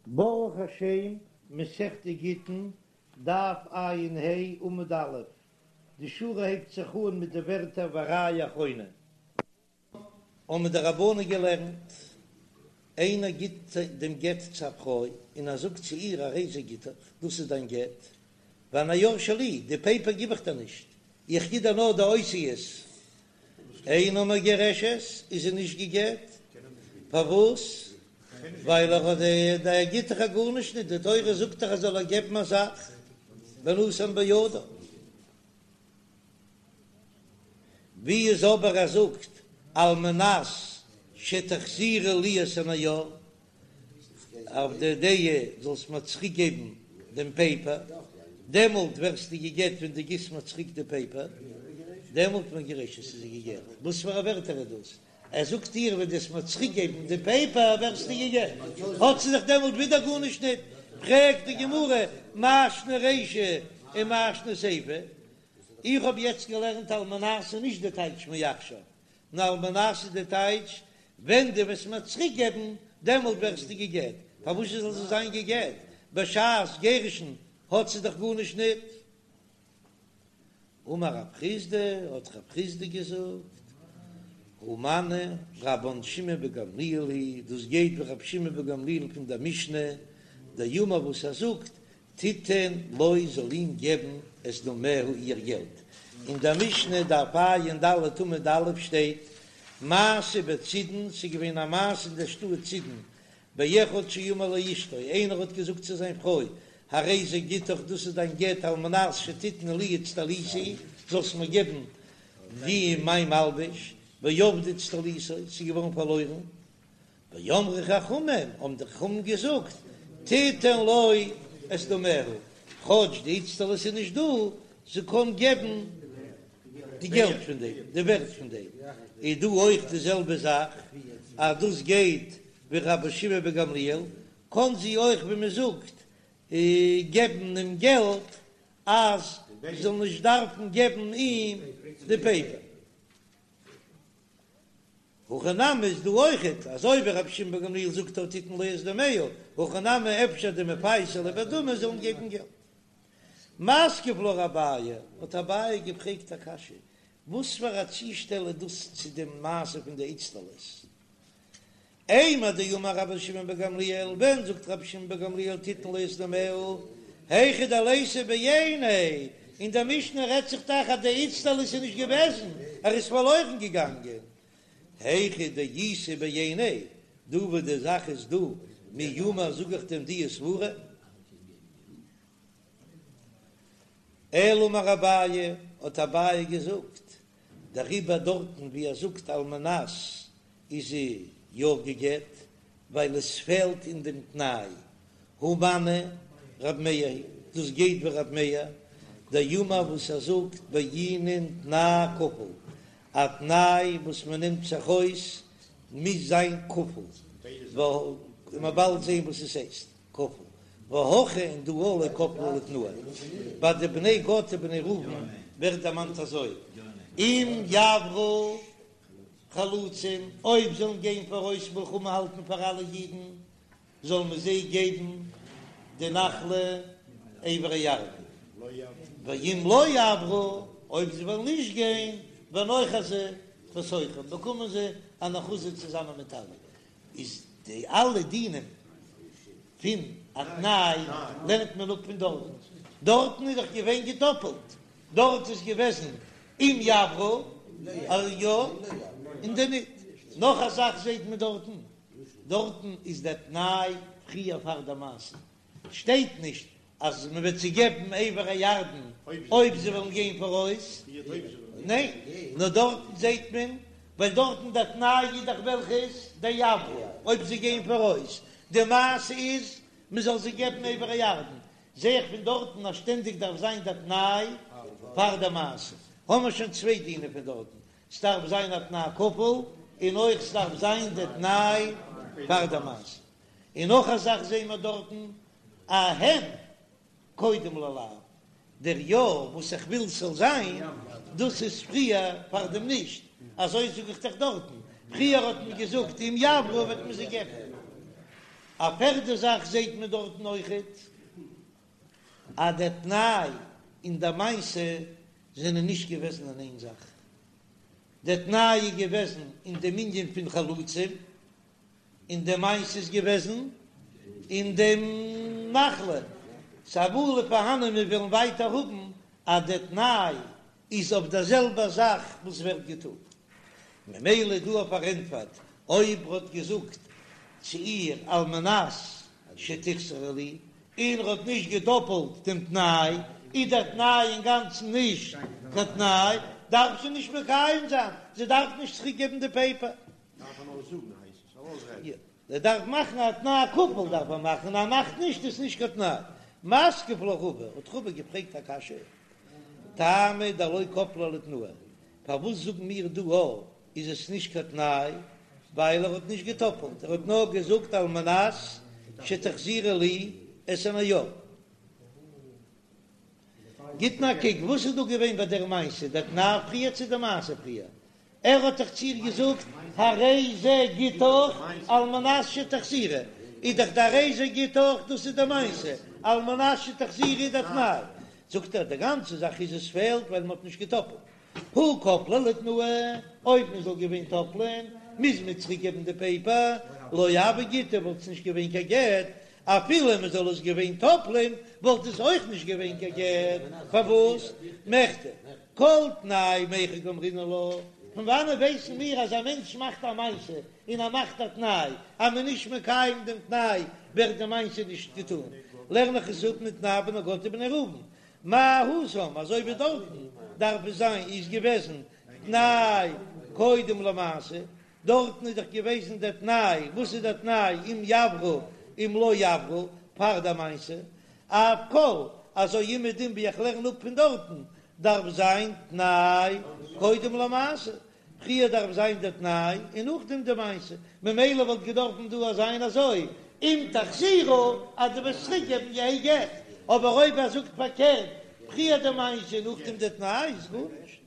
ברוך השם, מסכת גיטין, דף ע"ה, עמוד א', די שורה הייבט זיך אן מיט די ווערטער וראיה אחרונה. האבן די רבנן געלערנט, איינער גיט דעם גט צו א פרוי און ער זאגט צו איר הרי זה גיטך, דאס איז דיין גט, והנייר שלי, די פעיפער גיב איך דיר נישט, איך גיב דיר נאר די אותיות, אינה מגורשת, איז זי נישט גע'גט, פארוואס? ווייל ער האט ער גיט דאך גארנישט נישט, די תורה זאגט דאך אז זאל ער געבן א זאך ונתן בידה. ווי איז אבער ער זאגט על מנת שתחזירי לי את הנייר, אויף די דעה זאלסט מיר צוריק געבן דעם פעיפער, דעמאלט ווערסטו גע'גט ווען דו גיבסט מיר צוריק די פעיפער, דעמאלט מגורשת איז זי גע'גט, וואס פאר א ווערטער איז דאס? ער זאגט איר ווען דו וועסט מיר צוריק געבן די פעיפער ווערסטו גע'גט, האט זי זיך דעמאלט ווידער גארנישט ניט, פרעגט די גמרא מאי שנא רישא ומאי שנא סיפא, איך האב יעצט געלערנט על מנת איז נישט די טייטש מעכשיו, נאר על מנת איז די טייטש ווען דו וועסט מיר צוריק געבן דעמאלט ווערסטו גע'גט, פארוואס זאל זי זיין גע'גט בשעת גירושין האט זי דאך גארנישט ניט? אמר רב חסדא, האט רב חסדא געזאגט, הא מני רבן שמעון בן גמליאל היא, דאס גייט ווי רבי שמעון בן גמליאל פון דער משנה, דאמר וואס ער זאגט, תיתן לו זאל אים געבן את דמיה איר געלט, אין דער משנה דף ע"ד עמוד א' שטייט, מעשה בצידון, ס'איז געווען א מעשה אין דער שטאט צידון, באחד שאמר לאשתו, איינער האט געזאגט צו זיין פרוי, הרי זה גיטך, דאס איז דיין גט, על מנת שתתני לי אצטליתי, זאלסט מיר געבן די מיין מלבוש, ואבדה אצטליתו, ס'איז געווארן פארלוירן, ואמרו חכמים, האבן די חכמים געזאגט, תיתן לו את דמיה, כאטש די איצטלית איז נישט דא, זי קען געבן די געלט פון דעם, די ווערט פון דעם, איז דא אויך די זעלבע זאך, אז דאס גייט ווי רבי שמעון בן גמליאל, קען זי אויך ווי מען זאגט געבן אים געלט אז זי זאל נישט דארפן געבן אים די פעיפער. הכא נמי איז דא אויכעט, אזוי ווי רבי שמעון בן גמליאל זאגט אז תיתן לו את דמיה, הכא נמי אפשר דמפייסא ליה בדמי זאלן געבן געלט. מתקיף לה אביי, האט אביי געפרעגט א קשיא, וואס פאר א צושטעל איז דאס צו דעם מעשה פון די איצטלית? אימר דאמר רבי שמעון בן גמליאל, ווען זאגט רבי שמעון בן גמליאל תיתן לו את דמיה, היכא דליתא בעיניה, אין דער משנה רעדט זיך דאך אז די איצטלית איז נישט געוועזן, ער איז פארלוירן געגאנגען, היכא דאיתא בעיניה, דא וואו די זאך איז דא, מי אמר זאג איך דען די סברה? אלא אמר אביי, האט אביי געזאגט, דעריבער דארטן ווי ער זאגט על מנת איז זי יא גע'גט, ווייל עס פעלט אין דעם תנאי, הא מני רב מאיר היא, דאס גייט ווי רב מאיר, דאמר וואס ער זאגט בעינן תנאי כפול, א תנאי וואס מען נעמט זיך אויס מוז זיין כפול, וועלן מיר באלד זען וואס עס הייסט. כפול, והכא און דא לא כפליה לתנאיה. ביי די בני גד ובני ראובן ווערט דערמאנט אזוי, אם יעברו חלוצים, אויב זאלן גיין פאראויס מלחמה האלטן פאר אלע אידן, זאל מען זיי געבן די נחלה עבר הירדן, ואם לא יעברו, אויב זיי וועלן נישט גיין, ונאחזו בתוכם, באקומען זיי אן אחוזה צוזאמען מיט אלע. איז די אלע דינים פון א תנאי לערנט מען אפ פון דארטן, דארטן איז דאך געווען געדאפעלט, דארט איז געוועזן אם יעברו אז יא און די ניט, נאך א זאך זעט מען דארטן, דארטן איז דער תנאי פריער פאר די מעשה, שטייט נישט אז מען וועט זיי געבן עבר הירדן אויב זיי וועלן גיין פאראויס, ניין, נאר דארטן זעט מען, ווייל דארטן דער תנאי איז דאך וועלכע איז דיעברו, אויב זיי גייען פאראויס, די מעשה איז מען זאל זיי געבן עבר הירדן, זע איך פון דארטן אז שטענדיג דארף זיין דער תנאי פאר די מעשה, האמער שוין צוויי דינים פון דארטן, ס'דארף זיין א תנאי כפול, און אויך ס'דארף זיין דער תנאי פאר די מעשה. און נאך א זאך זעהן מיר דארטן א הן קודם ללאו, דער יא וואס איך וויל ס'זאל זיין, דאס איז פריער פאר דעם נישט, אזוי זאג איך דאך דארטן, פריער האט מען געזאגט אם יעברו וועט מען זיי געבן. א פערדע זאך זעהט מען דארטן אויכעט אז דער תנאי און די מעשה זענען נישט געוועזן אין איין זאך, דער תנאי איז געוועזן אין דעם ענין פון חלוצים, און די מעשה איז געוועזן אין דעם נחלה, ס'איז אמאל פארהאנען מיר וועלן ווייטער האבן אז דער תנאי איז אויף דער זעלבער זאך וואס ווערט געטון, ממילא דא אויף פארענטפערט אויב ר'האט געזאגט צו איר על מנת שתחזרי לי און ר'האט נישט געדאפלט דעם תנאי, איז דער תנאי אינגאנצן נישט קיין תנאי, דארף זי נישט מקיים זיין, זי דארף נישט צוריק געבן די פעיפער. דארף ער נאר זאגן הייסט עס, ארויסרעדן. יא, ער דארף מאכן א תנאי כפול דארף ער מאכן, און ער מאכט נישט איז נישט קיין תנאי. מתקיף לה רבא, האט רבא געפרעגט א קשיא, טעמא דלא כפליה לתנאי, פארוואס זאגן מיר דא א איז עס נישט קיין תנאי, ווייל ער האט נישט געטאפלט, ער האט נאר געזאגט על מנת שתחזירי לי את הנייר. גיט נאר א קוק וואס איז דא געווען ביי דער מעשה, דער תנאי פריער צו די מעשה פריער? ער האט דאך צו איר געזאגט הרי זה גיטך על מנת שתחזירי, איז דאך די הרי זה גיטך דאס איז די מעשה, על מנת שתחזירי איז די תנאי, זאגט ער די גאנצע זאך איז עס פעלט ווייל מען האט נישט געטאפלט, הא כפליה לתנאי, אויב מען זאל געווען טאפלען מוז מען צוריק געבן די פעיפער, לא הוי גיטא וואלט עס נישט געווען קיין גט, אפילו מען זאל עס געווען טאפלען וואלט עס אויך נישט געווען קיין גט, פארוואס? מכדי כל תנאי מהיכא קאמרינן לה, פון וואנען ווייסן מיר אז א מענטש מאכט א מעשה און ער מאכט א תנאי, אז מען איז נישט מקיים דעם תנאי ווערט די מעשה נישט געטון, לערן איך עס אפ מתנאי בני גד ובני ראובן, מה התם, אזוי ווי דארטן דארף עס זיין איז געוועזן תנאי קודם למעשה, דארטן איז דאך געוועזן דער תנאי, וואס איז דער תנאי אם יעברו אם לא יעברו פאר די מעשה, אף כל, אזוי אומעדום ווי איך לערן אפ פון דארטן, דארף זיין תנאי קודם למעשה, פריער דארף זיין דער תנאי און נאכדעם די מעשה, ממילא וואלט געדארפן דא זיין אזוי, אם תחזירו אז דו וועסט צוריק געבן יהא גט, אבער אויב ער זאגט פארקערט, פריער די מעשה און נאכדעם די תנאי איז גארנישט.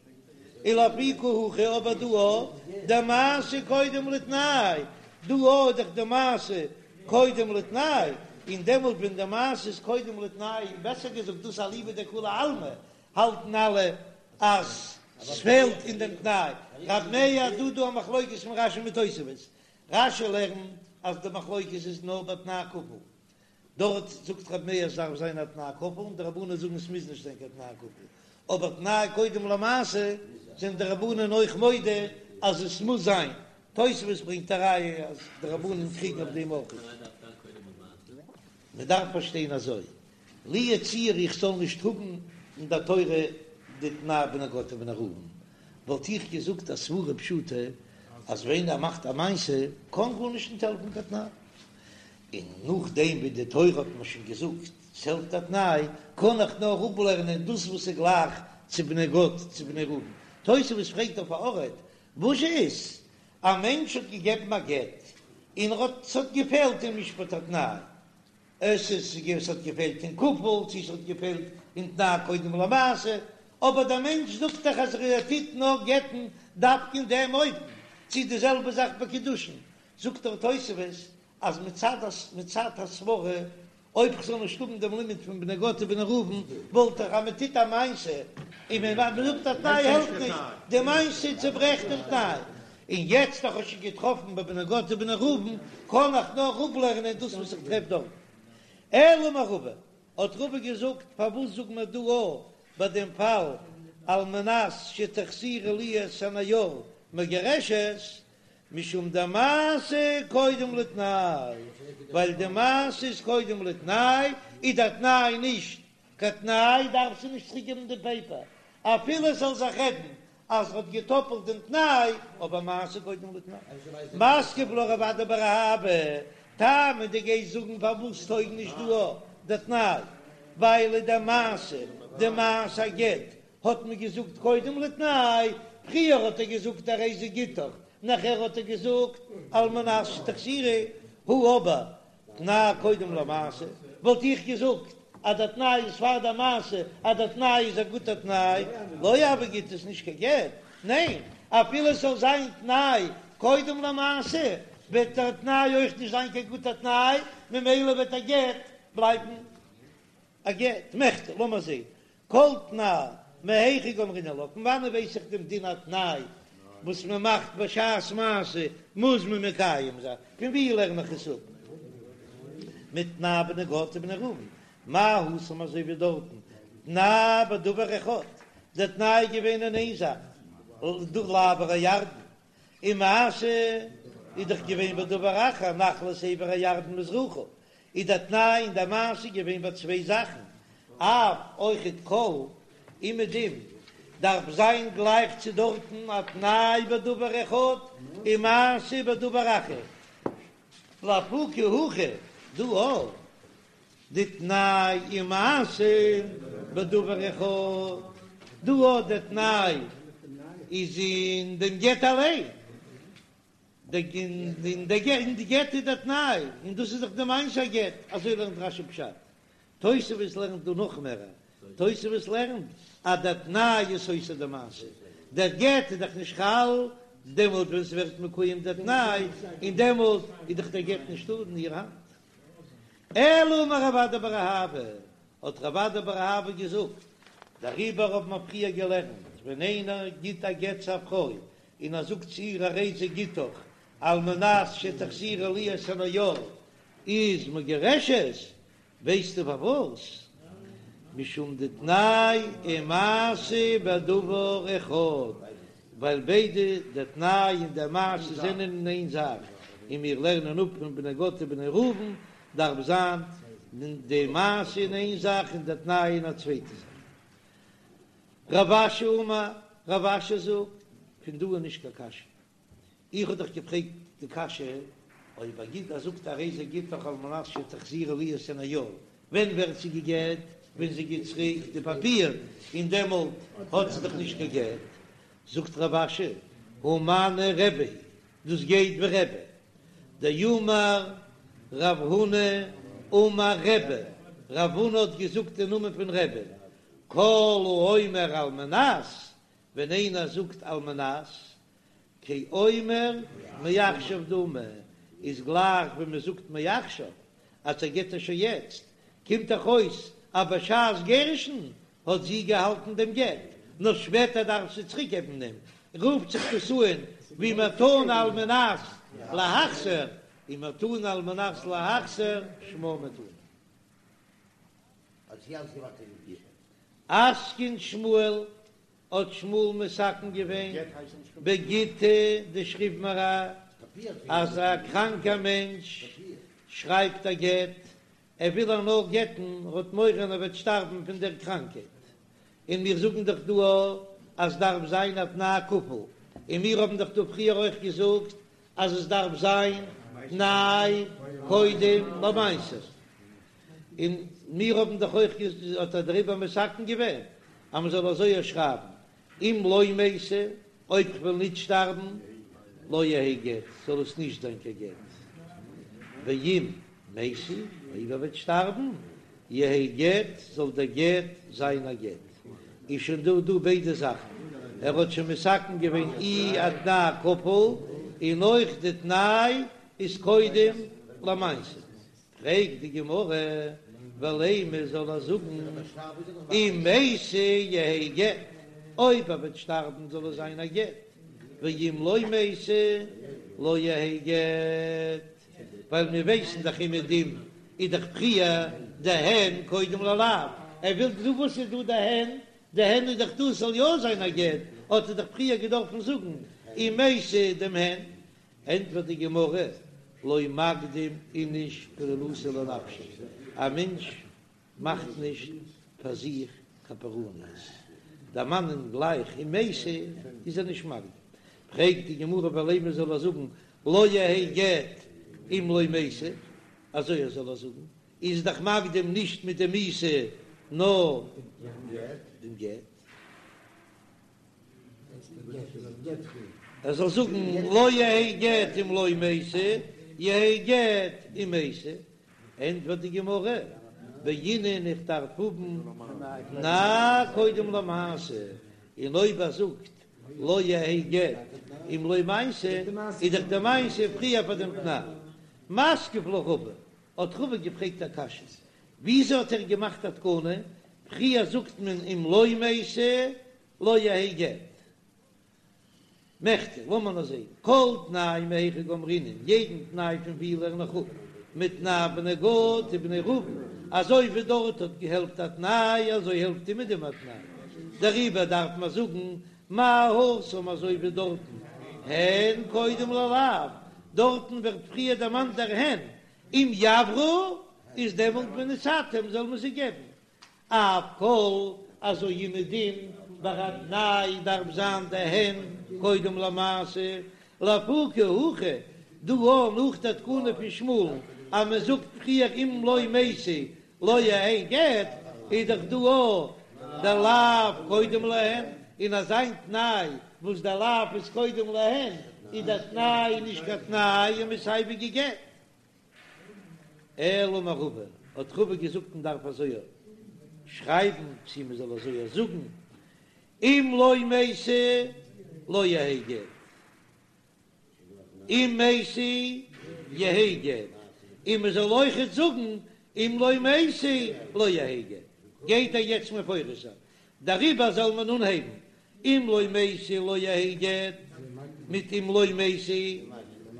ולאפוקי הכא אבער דא אויך דמעשה קודם לתנאי, דא אויך דאך די מעשה קודם לתנאי, און דעמאלט ווען די מעשה איז קודם לתנאי, בעסער געזאגט דאס אליבא דכולי עלמא, האלטן אלע אז ס'פעלט אין דעם תנאי. רב מאיר דא דא א מחלוקת פון רשי מיט תוספות, רשי לערנט אז די מחלוקת איז נאר ביי תנאי כפול, דארט זאגט רב מאיר עס דארף זיין א תנאי כפול און די רבנן זאגן עס מוז נישט זיין קיין תנאי כפול, אבער תנאי קודם למעשה זענען די רבנן אויך מודה אז עס מוז זיין, תוספות ברענגט א ראיה אז די רבנן קריגן אויף דעם אויך. מען דארף פארשטיין אזוי, לו יצוייר איך זאל נישט האבן אין דער תורה די תנאי בני גד ובני ראובן, וואלט איך געזאגט א סברה פשוטה אז ווען ער מאכט א מעשה קען גארנישט נישט העלפן קיין תנאי, און נאכדעם ווי די תורה האט מיר שוין געזאגט ס'העלפט א תנאי, קען איך נאר אפלערנען דאס וואס איז גלייך צו בני גד צו בני ראובן. תוספות פרעגט אויף א ארט, וואס איז? א מענטש האט געגעבן א גט, און ער האט ס'האט געפעלט אין משפט התנאי, עס איז ס'האט געפעלט אין כפול, צו ס'האט געפעלט אין תנאי קודם למעשה, אבער דער מענטש זאגט דאך אז ער טוט נאר גט'ן דווקא אין דעם אופן, צו די זעלבע זאך ביי קידושין, זאגט דער תוספות אז מצד מצד הסברה, אויב כ'זאל נישט האבן דעם לימוד פון בני גד ובני ראובן, וואלט איך אז מען טוט א מעשה און מען זאגט א תנאי העלפט נישט, די מעשה צוברעכט דעם תנאי, און יעצט איך האב שוין געטראפן ביי בני גד ובני ראובן, קען איך נאר אפלערנען דאס וואס איך טרעף דארט. אלא אמר רבא, האט רבא געזאגט, פארוואס זאגט מען דא א ביי דעם פאל על מנת שתחזירי לי את הנייר מגורשת, משום דמעשה קודם לתנאי, ווייל די מעשה איז קודם לתנאי, איז דער תנאי נישט קיין תנאי, דארף זי נישט צוריק געבן די פעיפער, אפילו עס זאל זיך רעדן אז ער האט געטאפלט דעם תנאי, אבער מעשה קודם לתנאי. מתקיף לה רב אדא בר אהבה, טעמא דו גייסט זאגן פארוואס טויג נישט דא דער תנאי, ווייל די מעשה, די מעשה הגט האט מען געזאגט קודם לתנאי, פריער האט ער געזאגט הרי זה גיטך, נאכער האט ער געזאגט על מנת שתחזירי, הא אבער תנאי קודם למעשה, וואלט איך געזאגט אז דער תנאי איז פאר דער מעשה, אז דער תנאי איז א גוטער תנאי, לא הוי גיטא איז נישט קיין גט, ניין, אפילו עס זאל זיין תנאי קודם למעשה. וועט דער תנאי אויך נישט זיין קיין גוטער תנאי, ממילא וועט א גט בלייבן א גט. מכדי, לאמיר זען, כל תנאי מהיכא גמרינן לה, פון וואנען ווייס איך דעם דין א תנאי וואס מען מאכט בשעת מעשה מוז מען מקיים זיין, פון ווי לערן איך עס אפ? מתנאי בני גד ובני ראובן, מה התם אזוי ווי דארטן, תנאי בדבר אחד, דער תנאי איז געווען אין איין זאך, לעבור הירדן, און מעשה איז דאך געווען בדבר אחר, נחלת עבר הירדן מזרחה, איז דער תנאי און דער מעשה געווען ביי צוויי זאכן, אף אויכעט כל אומעדום דארף זיין גלייך צו דארטן א תנאי בדבר אחד און מעשה בדבר אחר, לאפוקי הכא דא אויך דתנאי ומעשה בדבר אחד, דא אויך דער תנאי איז אין דעם גט אליין, אין די גט איז דער תנאי, און דאס איז דאך די מעשה הגט, אזוי לערנט רש"י פשט. תוספות לערנט דא נאך מער, תוספות לערנט אז דער תנאי איז סותר די מעשה, דער גט איז דאך נישט חל דעמאלט ווען ס'ווערט מקוים דער תנאי, און דעמאלט איז דאך דער גט נישטא אין איר האנט. אלא אמר רב אדא בר אהבה, האט רב אדא בר אהבה געזאגט, דעריבער האבן מיר פריער געלערנט, ווען איינער גיט א גט צו א פרוי און ער זאגט צו איר הרי זה גיטך על מנת שתחזירי לי את הנייר איז מגורשת, ווייסטו פארוואס? משום דתנאי ומעשה בדבר אחד, ווייל ביידע דער תנאי און דער מעשה זענען אין איין זאך, און מיר לערנען אפ פון בני גד ובני ראובן דארף זיין די מעשה אין איין זאך און דער תנאי אין א צווייטע זאך. רב אשי אמר, רב אשי זאגט, פון דא איז נישט קיין קשיא. איך האב דאך געפרעגט די קשיא, אויב ער גיט ער זאגט הרי זה גיטך על מנת שתחזירי לי את הנייר, ווען ווערט זי גע'גט? ווען זי גיט צוריק די פאפיר, און דעמאלט האט זי דאך נישט קיין גט. זאגט רב אשי, הא מני רבי, דאס גייט ווי רבי, דאמר רב הונא אמר רבי, רב הונא האט געזאגט אין נאמען פון רבי, כל האומר על מנת, ווען איינער זאגט על מנת, כאומר מעכשיו דמי, איז גלייך ווי מען זאגט מעכשיו, אז ער גט איר שוין יעצט, קומט דאך אויס אז בשעת גירושין האט זי געהאלטן דעם גט, נאר שפעטער דארף זי צוריק געבן דעם, רופט זיך דאס אן ווי מתנה על מנת להחזיר, און מתנה על מנת להחזיר שמה מתנה. אתקין שמואל האט שמואל מתקן געווען בגיטא דשכיב מרע אז א קראנקער מענטש שרייבט א גט, ער וויל איר נאר גט'ן, ער האט מורא ער וועט שטארבן פון דער קראנקייט, און מיר זאגן דאך דא אז דארף זיין א תנאי כפול, און מיר האבן דאך דא פריער אויך געזאגט אז עס דארף זיין תנאי קודם למעשה. און מיר האבן דאך אויך האט ער דעריבער מתקן געווען אז מען זאל אזוי שרייבן, אם לא מתי, אויב כ'וועל ניט שטארבן, לא יהא גט, זאל עס נישט זיין קיין גט, ואם מתי, אויב ער וועט שטארבן, יהא גט, זאל דער גט זיין א גט. איז שוין דא דא ביידע זאכן, ער האט שוין מתקן געווען אי א תנאי כפול, און אויך די תנאי איז קודם למעשה. פרעגט די גמרא, ולימא זאל ער זאגן אם מתי יהא גט, אויב ער וועט שטארבן זאל עס זיין א גט, ואם לא מתי לא יהא גט, ווייל מיר ווייסן דאך אומעדום איז דאך פריער די הן קודם ללאו, ער וויל דא וואס איז דא די הן, די הן איז דאך דא ס'זאל יא זיין א גט, האט ער דאך פריער געדארפן זאגן אם מתי דעם הן, ענטפערט די גמרא, לא מקדים איניש פורענותא לנפשיה, א מענטש מאכט נישט פאר זיך קיין פורענות, דערמאנען גלייך אם מתי איז ער נישט מקדים, פרעגט די גמרא ולימא זאל ער זאגן לא יהא גט אם לא מתי, אזוי ער זאל ער זאגן, איז דאך מקדים נישט מיט די מיתה נאר דעם גט. ער זאל זאגן לא יהא גט אם לא מתי, יהא גט אם מתי, ענטפערט די גמרא, בעינן איך דארף האבן תנאי קודם למעשה, און אויב ער זאגט. לא יהא גט אם לא מעשה, איז דאך די מעשה פריער פאר דעם תנאי. מתקיף לה רבא, האט רבא געפרעגט א קשיא, וויאזוי האט ער געמאכט א תקנה, פריער זאגט מען אם לא מתי לא יהא גט. מכדי, לאמיר נאר זעהן, כל תנאי מהיכא גמרינן, יעדן תנאי פון ווי לערן איך אפ, מתנאי בני גד ובני ראובן, אזוי ווי דארט האט געהעלפט א תנאי אזוי העלפט אומעדום א תנאי, דעריבער דארף מען זאגן מה התם אזוי ווי דארטן הן קודם ללאו, דארטן ווערט פריער דערמאנט דער הן, אם יעברו איז דעמאלט ונתתם זאל מען זיי געבן, אף כל אזוי אומעדום ביי א תנאי דארף זיין די הן קודם למעשה, לאפוקי הכא דא אויך נאך די תקנה פון שמואל'ן אז מען זאגט פריער אם לא מתי לא יהא גט איז דאך דא אויך די לאו קודם להן, און אזא תנאי וואס די לאו איז קודם להן איז די תנאי נישט קיין תנאי און מ'איז סייווי גע'גט. אלא אמר רבא, האט רבא געזאגט מען דארף אזוי שרייבן צי מען זאל אזוי זאגן, אם לא מתי לא יהא גט, אם מתי יהא גט, און מען זאל אויכעט זאגן אם לא מתי לא יהא גט, גייט ער יעצט מפרש זיין, דעריבער זאל מען אנהייבן אם לא מתי לא יהא גט מיט אם לא מתי,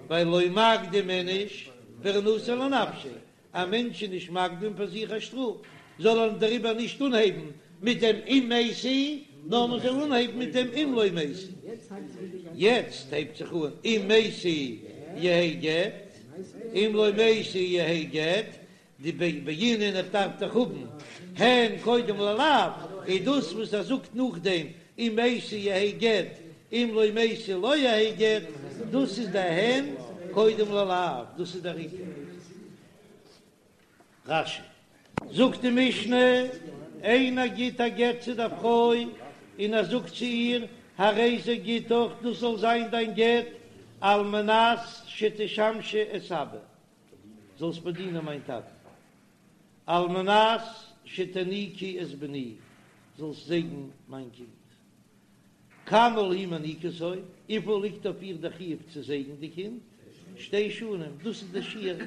ווייל לא מקדים איניש פורענותא לנפשיה, א מענטש איז נישט מקדים פאר זיך א שטראף, זאל ער דעריבער נישט אנהייבן מיט דעם אם מתי, נאר מען זאל אנהייבן מיט דעם אם לא מתי. יעצט הייבט זיך אן אם מתי יהא גט, אם לא מתי יהא גט, דבעינן איך דארף דאך האבן הן קודם ללאו, איז דאס וואס ער זאגט נאכדעם אם מתי יהא גט אם לא מתי לא יהא גט, דאס איז די הן קודם ללאו, דאס איז דער עיקר. רש"י זאגט די משנה, איינער גיט א גט צו דער פרוי און ער זאגט צו איר, הרי זה גיטך, דאס זאל זיין דיין גט, על מנת שתשמשי את אבא. זאלסט באדינען מיין טאטן, על מנת שתניקי את בני, זאלסט זייגן מיין קינד. כמה היא מניקתו, וויפיל ליגט אויף איר דער חיוב צו זייגן די קינד? שתי שנים, דאס איז דער שיעור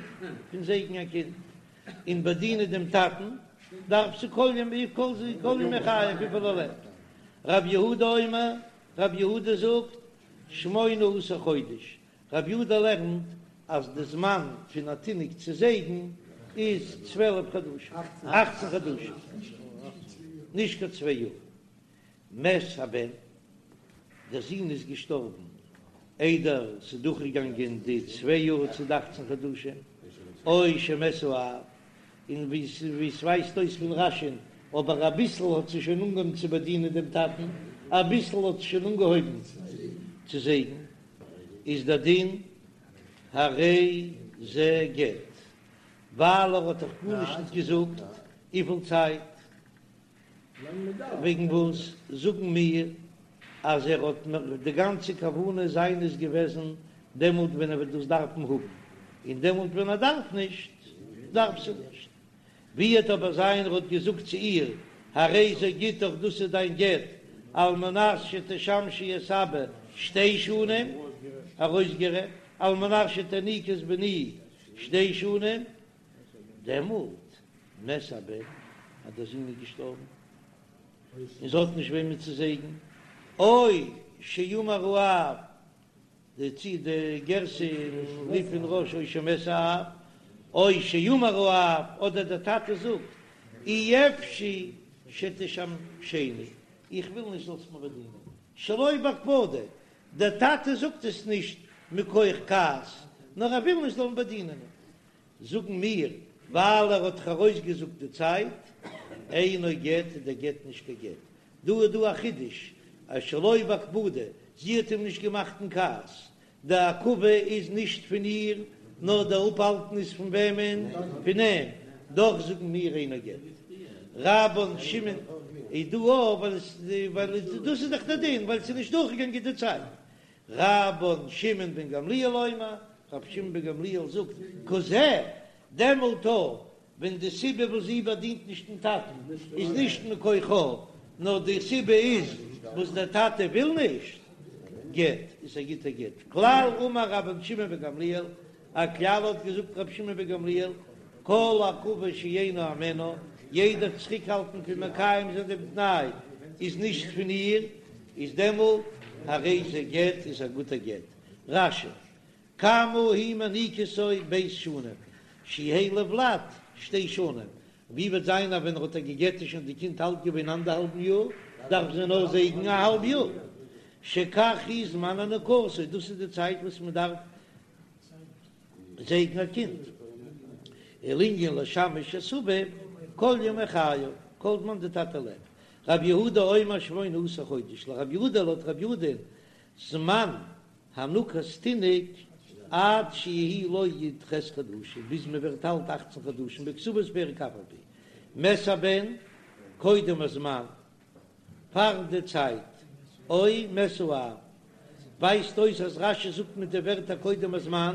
פון זייגן א קינד, און באדינען דעם טאטן דארף זי כל ימי כל ימי חייו וויפיל ער לעבט. רב יהודה אומר, רב יהודה זאגט, שמונה עשר חודש, רבי יהודה לערנט אז די זמן פון א תינוק צו זייגן איז 12 חדשים, אכצן חדשים, נישט קיין צוויי יאר. מת הבן, דער זון איז געשטארבן איידער ס'איז דורכגעגאנגען די צוויי יאר צו די אכצן חדשים, או שמת האב, און ווי ס'ווייזט אויס פון רש"י'ן, אבער אביסל האט זי שוין אנגעהויבן צו באדינען דעם טאטן, אביסל האט זי שוין אנגעהויבן צו זייגן. איז דער דין הרי זה גט, ווייל ער האט דאך גארנישט נישט געזאגט וויפיל צייט, וועגן וואס זאגן מיר אז ער האט די גאנצע כוונה זיינע איז געוועזן דעמאלט ווען ער וועט דאס דארפן האבן, און דעמאלט ווען ער דארף נישט דארף זי נישט. ווי וועט אבער זיין ער האט געזאגט צו איר, הרי זה גיטך דאס איז דיין גט, על מנת שתשמשי את אבא שתי שנים, ארויסגערעדט, על מנת שתניקי את בני שתי שנים, דעמאלט מת הבן, אז דער זון איז געשטארבן, און זי האט נישט וועמען צו זייגן, או שאמר האב, די צי די גירסא אין רי"ף און רא"ש או שמת האב, או שאמר האב, אדער דער טאטע זאגט, אי אפשי שתשמשני, איך וויל נישט זאלסט מיר באדינען, שלא בהקפדה, דער טאטע זאגט עס נישט מכח כעס, נאר ער וויל נישט זאלן באדינען אים, זאגן מיר, ווייל ער האט דאך ארויסגעזאגט די צייט, אינו גט איז דער גט נישט קיין גט. דא איז דא א חידוש, אז שלא בהקפדה, זי האט אים נישט געמאכט אין כעס, די עכבה איז נישט פון איר, נאר די אפהאלטן איז פון וועמען? פון אים, דאך זאגן מיר אינו גט. רבן שמעון איז דא אויך, ווייל עס ווייל דאס איז דאך דער דין, ווייל ס'איז נישט דורכגעגאנגען די צייט. רבן שמעון בן גמליאל אומר, רבי שמעון בן גמליאל זאגט, כזה, דעמאלט אויך ווען די סיבה וואס זי באדינט נישט דעם טאטן איז נישט מכוחה, נאר די סיבה איז וואס דער טאטע וויל נישט. גט, איז א גוטער גט. כלל אמר רבן שמעון בן גמליאל, א כלל האט געזאגט רבי שמעון בן גמליאל, כל עכבה שאינה הימנה, יעדער צוריקהאלטן פון מקיים זיין דעם תנאי איז נישט פון איר, איז דעמאלט הרי זה גט איז א גוטער גט. רש"י, כמה היא מניקתו ב' שנים, שיהא לולד שתי שנים, ווי וועט זיין אז ווען ער האט איר גע'גט איז שוין די קינד אלט געווען אנדערהאלבן יאר, דארף זי נאר זייגן א האלב יאר, שכך הוא זמן הנקתו, דאס איז די צייט וואס מען דארף זייגן א קינד, ולענין לשמש את אביו כל ימי חייו, כל זמן די טאטע לעבט, רב יהודה אומר שמונה עשר חודש, לרב יהודה לויט רב יהודה זמן הנקת תינוק עד שיהא לו י"ח חדשים, ביז מען ווערט אלט אכצן חדשים, בכתובות פרק אף על פי מת הבן קודם הזמן, פאר די צייט, או מת האב, ווייזט אויס אז רש"י זאגט מיט די ווערטער קודם הזמן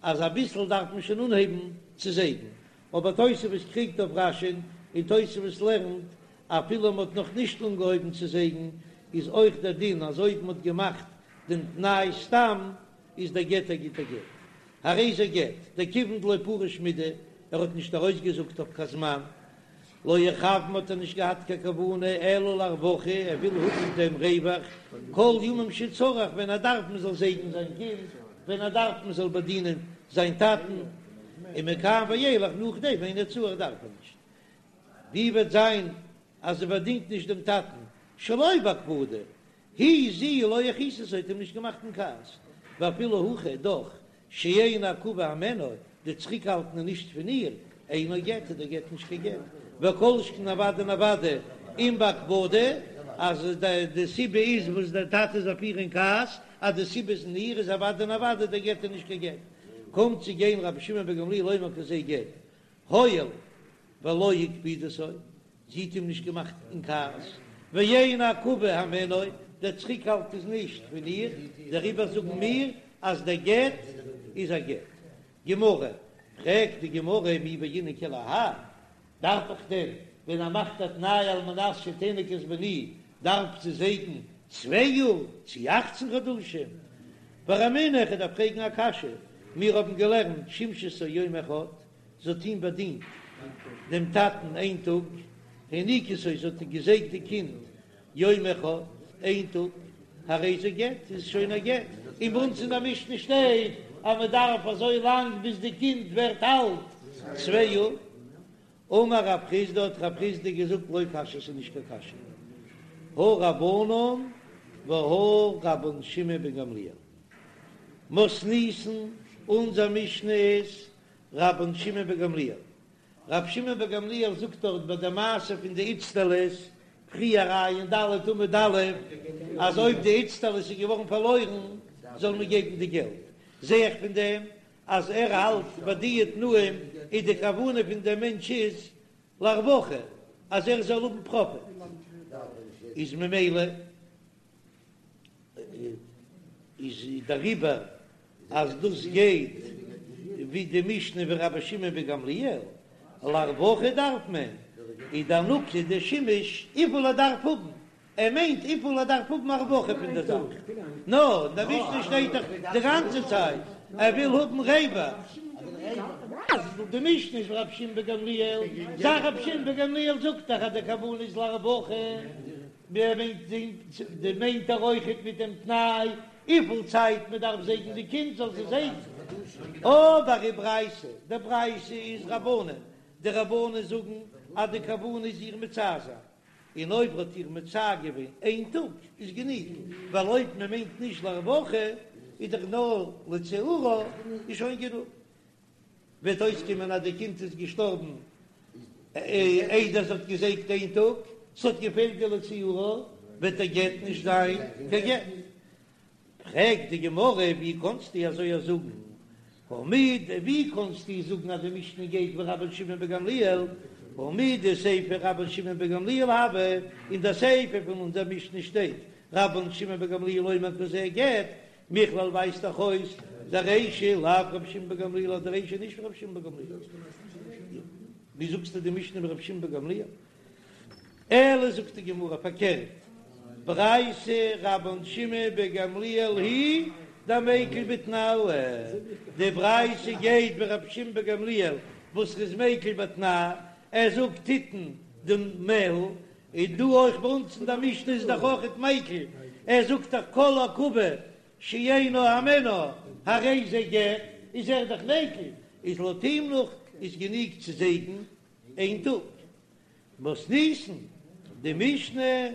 אז אביסל דארף מען שוין אנהייבן צו זייגן, אבער תוספות קריגט אויף רש"י'ן און תוספות לערנט אפילו מען האט נאך נישט אנגעהויבן צו זייגן איז אויך דער דין אז אויב מען האט געמאכט דעם תנאי סתם איז דער גט א גוטער גט. הרי זה גט, דכיון דלא פריש מידי, ער האט נישט ארויסגעזאגט אויף קיין זמן, לא איכוון האט ער נישט געהאט קיין כוונה אלא לרווחה, ער וויל האבן דעם רווח כל ימים שצריך, ווען ער דארף מען זאל זייגן זיין קינד, ווען ער דארף מען זאל באדינען זיין טאטן, ומכאן ואילך נאכדעם אינו צריך דארף ער נישט. ווי וועט זיין אז ער באדינט נישט דעם טאטן שלא בהקפדה, היא זי לא הכעיסתו האט אים נישט געמאכט אין כעס, ואפילו הכי דאך שאין העכבה הימנה, די צוריקהאלטן איז נישט פון איר, אינו גט איז דער גט נישט קיין גט, וכל שכן אוודאי און אוודאי אם בהקפדה, אז די סיבה איז וואס דער טאטע איז אויף איר אין כעס, אז די סיבה איז אין איר איז אוודאי און אוודאי דער גט איז נישט קיין גט. קומט צו גיין רבי שמעון בן גמליאל אומר כזה גט, הואיל ולא הקפידתו, זי האט אים נישט געמאכט אין כעס, ואין העכבה הימנה, דער צוריקהאלט איז נישט פון איר, דעריבער זאגן מיר אז דער גט איז א גט. גמרא, פרעגט די גמרא מי בעינן כולי האי, דארף איך דען ווען ער מאכט א תנאי על מנת שתניק את בני דארף זי זייגן צוויי יאר צי אכצן חדשים? ורמינהו איך דארף פרעגן א קשיא, מיר האבן געלערנט שימשתו יום אחד, זי האט אים באדינט דעם טאטן איין טאג, הניקתו זי האט געזייגט די קינד יום אחד, איין טאג, הרי זה גט, איז שוין א גט, און ביי אונז אין די משנה שטייט אז מען דארף אזוי לאנג ביז די קינד ווערט אלט צוויי יאר. אמר רב חסדא האט רב חסדא געזאגט לא קשיא ס'איז נישט קיין קשיא, הא רבנן והא רבן שמעון בן גמליאל מתניתין, אונזער משנה איז רבן שמעון בן גמליאל, רבי שמעון בן גמליאל זאגט דארט ביי די מעשה פון די איצטלית, פריער ע"ד עמוד א', אז אויב די איצטלית איז געווארן פארלוירן זאל מען געבן די געלט, זע איך פון דעם אז ער האלט ביי די תנאים איז די כוונה פון דעם מענטש איז לרווחה אז ער זאל האבן פראפיט, איז ממילא איז דעריבער אז דאס גייט ווי די משנה ווי רבי שמעון בן גמליאל, לרווחה דארף מען, איז די הנקה די שימוש וויפיל ער דארף האבן, ער מיינט וויפיל ער דארף האבן א רווחה פון די זאך, נא, אין די משנה שטייט דאך די גאנצע צייט ער וויל האבן רווח. די משנה איז רבי שמעון בן גמליאל, זאג רבי שמעון בן גמליאל זאגט דאך אז די כוונה איז לרווחה. די מיינט ער אויכעט מיט דעם תנאי וויפיל צייט מען דארף זייגן די קינד זאל זי זייגן, אבער די ברייתא, די ברייתא איז רבנן, די רבנן זאגן אז די כוונה איז איר מצער זיין, און אויב האט איר מצער געווען איין טאג איז גענוג, ווייל אויב מען מיינט נישט לרווחה איז דאך נאר לצעורה איז שוין גענוג. וועט אויסקומען אז די קינד איז געשטארבן איידער זי האט געזייגט איין טאג, ס'האט געפעלט די לצעורה, וועט דער גט נישט זיין קיין גט. פרעגט די גמרא, ווי קאנסטו אזוי זאגן? הא מד, ווי קאנסטו זאגן אז די משנה גייט ווי רבן שמעון בן גמליאל? הא מדסיפא רבן שמעון בן גמליאל הוה, אין די סיפא פון אונזער משנה שטייט רבן שמעון בן גמליאל אומר כזה גט, מכלל ווייזט דאך אויס דרישא לאו רבי שמעון בן גמליאל אז די רישא איז נישט ווי רבי שמעון בן גמליאל. ווי זאגסטו די משנה ווי רבי שמעון בן גמליאל? אלא זאגט די גמרא פארקערט. ברייתא רבן שמעון בן גמליאל היא דמיקל בתנאי, די ברייתא גייט ווי רבי שמעון בן גמליאל וואס איז מיקל בתנאי, ער זאגט תיתן דמיה, און דא אויך ביי אונז אין די משנה איז דאך אויכעט מיקל, ער זאגט דאך כל עכבה שאינה הימנה הרי זה גט, איז ער דאך מיקל, איז לויט אים נאך איז גענוג צו זייגן איין טאג. מתניתין, די משנה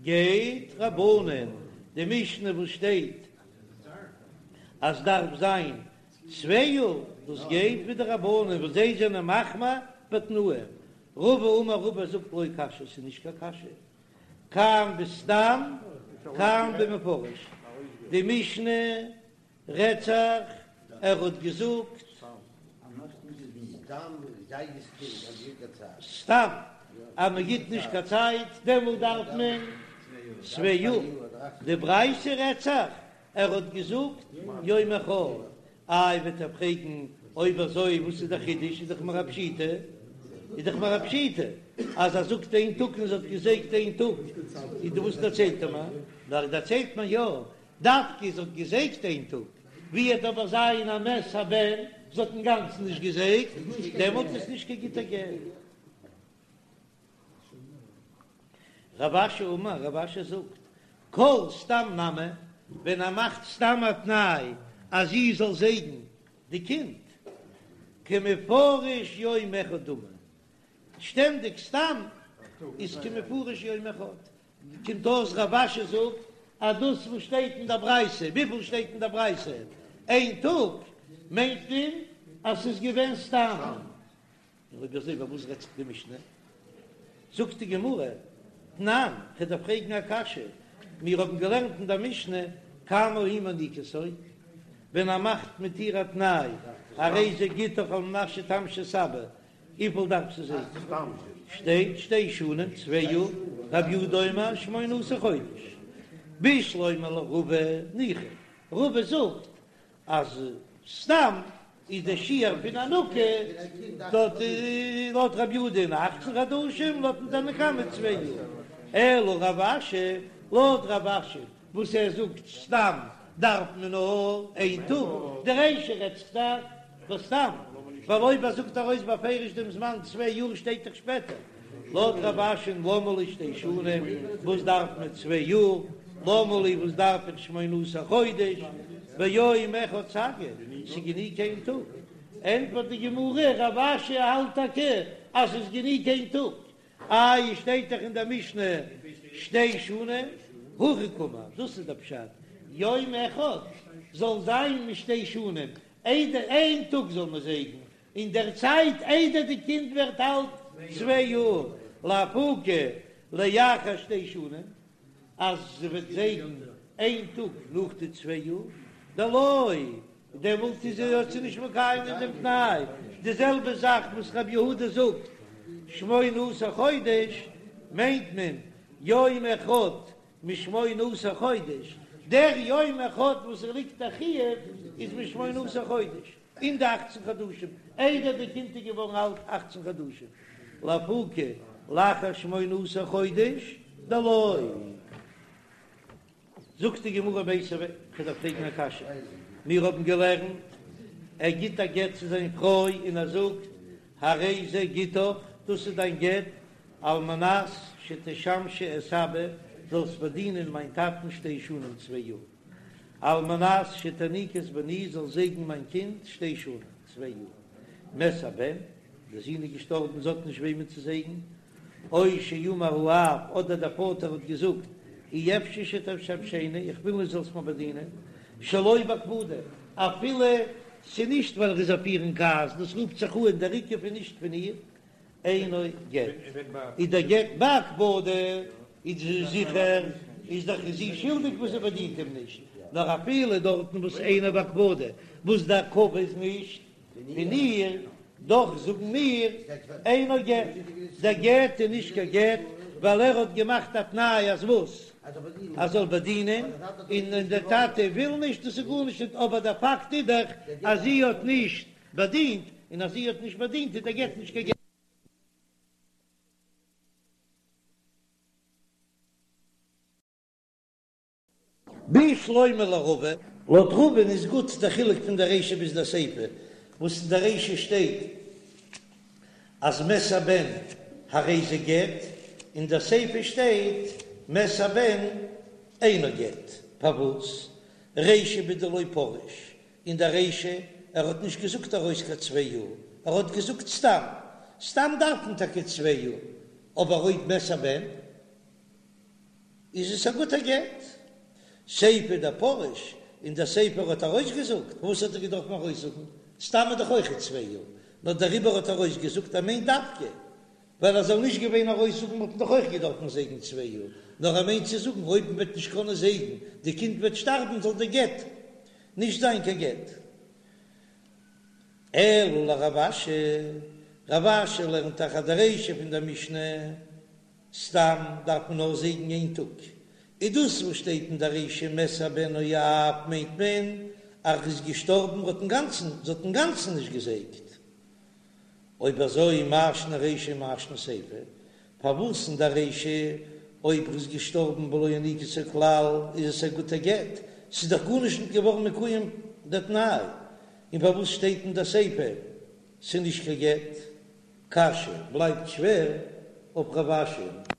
גייט רבנן, די משנה וואס שטייט אז דארף זיין צוויי יאר, דאס גייט ווי די רבנן וואס זיי זענען מחמיר בתנאים. רבא אמר רבא זאגט לא קשיא, ס'איז נישט קיין קשיא, כאן בסתם כאן במפורש, די משנה רעדט זיך ער האט געזאגט סתם אז מען גיט נישט קיין צייט דעמאלט דארף מען צוויי יאר, די ברייתא רעדט זיך ער האט געזאגט יום אחד, איי וועט ער פרעגן אויב אזוי וואס איז די חידוש איז דאך מיר א פשיטא איז דאך מיר א פשיטא אז ער זאגט איין טאג און זי האט געזייגט איין טאג איז די וואס דערציילט ער מיר נאר דערציילט מען יא דווקא זי האט געזייגט איין טאג, ווי וועט אבער זיין א מת הבן, זי האט אינגאנצן נישט געזייגט, דעמאלט איז נישט קיין גוטער גט. רב אשי אמר, רב אשי זאגט, כל סתם נמי, ווען ער מאכט סתם א תנאי אז זי זאל זייגן די קינד, כמפורש יום אחד דמי, שטענדיג סתם איז כמפורש יום אחד, קומט אויס רב אשי זאגט אז דאס וואס שטייט אין דער ברייתא, וויפיל שטייט אין דער ברייתא? איין טאג, מיינט מען אז ס'איז געווען סתם. און אויב אזוי ביי וואס רעדט זיך די משנה? זאגט די גמרא, תנן, כ'דארף פרעגן א קשיא, מיר האבן געלערנט אין דער משנה כמה היא מניקתו, ווען ער מאכט מיט איר א תנאי, הרי זה גיטך על מנת שתמשי את אבא, וויפיל דארף זי זייגן? שטייט שתי שנים, צוויי יאר, רב יהודה אומר שמונה עשר חודש. בשלמא לרבא ניחא, רבא זאגט אז סתם איז דער שיעור פון הנקה דארט לויט רב יהודה אין אכצן חדשים, לויטן תנא קמא צוויי יאר. אלא רב אשי, לויט רב אשי וואס ער זאגט סתם דארף מען נאר איין טאג, די רישא רעדט זיך דאך בסתם, ווייל אויב ער זאגט ארויס בפירוש דעם זמן צוויי יאר שטייט דאך שפעטער, לויט רב אשי'ן למה לי שתי שנים, וואס דארף מען צוויי יאר, למה לי וואס דארף איך שמונה עשר חודש, ביום אחד סגי, ס'גענוג איין טאג, ענטפערט די גמרא, רב אשי האלט טאקע אז ס'איז גענוג איין טאג, איי שטייט דאך אין דער משנה שתי שנים, הכי קאמר, דאס איז דער פשט, יום אחד זאל זיין משתי שנים, איידער איין טאג זאל מען זייגן, אין דער צייט איידער די קינד ווערט אלט צוויי יאר, לאפוקי לאחר שתי שנים, אז זי וועט זייגן איין טאג נאך די צוויי יאר, דלא דעמאלט איז זי האט זי נישט מקיים געווען דעם תנאי, די זעלבע זאך וואס רבי יהודה זאגט שמונה עשר חודש מיינט מען יום אחד משמונה עשר חודש, דער יום אחד וואס ער ליגט א חיוב איז משמונה עשר חודש, אין די אכצן חדשים, איידער די קינד איז געווארן אלט אכצן חדשים, לאפוקי לאחר שמונה עשר חודש דלא. זאגט די גמרא מיתיבי, כ'דארף פרעגן א קשיא, מיר האבן געלערנט, ער גיט א גט צו זיין פרוי און ער זאגט, הרי זה גיטך, דאס איז דיין גט, על מנת שתשמשי את אבא, זאלסט באדינען מיין טאטן שתי שנים צוויי יאר, על מנת שתניקי את בני, זאלסט זייגן מיין קינד שתי שנים צוויי יאר, מת הבן, דער זון איז געשטארבן, זי האט נישט וועמען צו זייגן, או שאמר האב, אדער דער פאטער האט געזאגט, אי אפשי שתשמשני, איך וויל נישט זאלסט מיר באדינען, שלא בהקפדה, אפילו ס'איז נישט ווייל ער איז אויף איר אין כעס, דאס רופט זיך אן דער עיכוב איז נישט פון איר, אינו גט, איז דער גט בהקפדה, איז זיכער, איז דאך זי שולדיג וואס זי באדינט אים נישט, נאר אפילו דארטן וואס אינו בהקפדה, וואס די עכבה איז נישט פון איר, דאך זאגן מיר אינו גט, דער גט איז נישט קיין גט, ווייל ער האט געמאכט א תנאי אז וואס? אז זאל באדינען, און דער טאטע וויל נישט, דאס איז גארנישט נישט, אבער דער פאקט איז דאך אז זי האט נישט באדינט, און אז זי האט נישט באדינט איז דער גט נישט קיין גט. בשלמא לרבא. לויט רבא'ן איז גוט דער חילוק פון דער רישא ביז דער סיפא, וואס אין דער רישא שטייט אז מת הבן הרי זה גט, אין דער סיפא שטייט מת הבן אינו גט, פארוואס? רישא בדלא פריש, אין דער רישא ער האט נישט געזאגט ארויס קיין צוויי יאר, ער האט געזאגט סתם, סתם דארף מען טאקע צוויי יאר, אבער אויב מת הבן איז עס א גוטער גט. סיפא דפריש, אין דער סיפא האט ארויסגעזאגט, וואס האט ער געדארפן ארויסזאגן? סתם איז דאך אויכעט צוויי יאר, נאר דעריבער האט ער ארויסגעזאגט ער מיינט דווקא, ווייל ער זאל נישט געווען ארויסזאגן וואלט מען דאך אויך געדארפן זייגן צוויי יאר, נאר ער מיינט צו זאגן אויב מען וועט נישט קענען זייגן, די קינד וועט שטארבן זאל די גט נישט זיין קיין גט. אלא לרב אשי, רב אשי לערנט דאך אז די רישא פון דער משנה סתם דארף מען נאר זייגן איין טאג, איז דאס וואס שטייט אין דער רישא מת הבן או האב מיינט מען אז ער איז געשטארבן האט אינגאנצן זי האט אינגאנצן נישט געזייגט. אויב אזוי מאי שנא רישא מאי שנא סיפא, פארוואס אין דער רישא אויב ער איז געשטארבן ולא הניקתו כלל איז עס א גוטע גט, ס'איז דאך גארנישט נישט געווארן מקוים דער תנאי, און פארוואס שטייט אין דער סיפא ס'איז נישט קיין גט? קשיא, בלייבט שווער אויף רב אשי.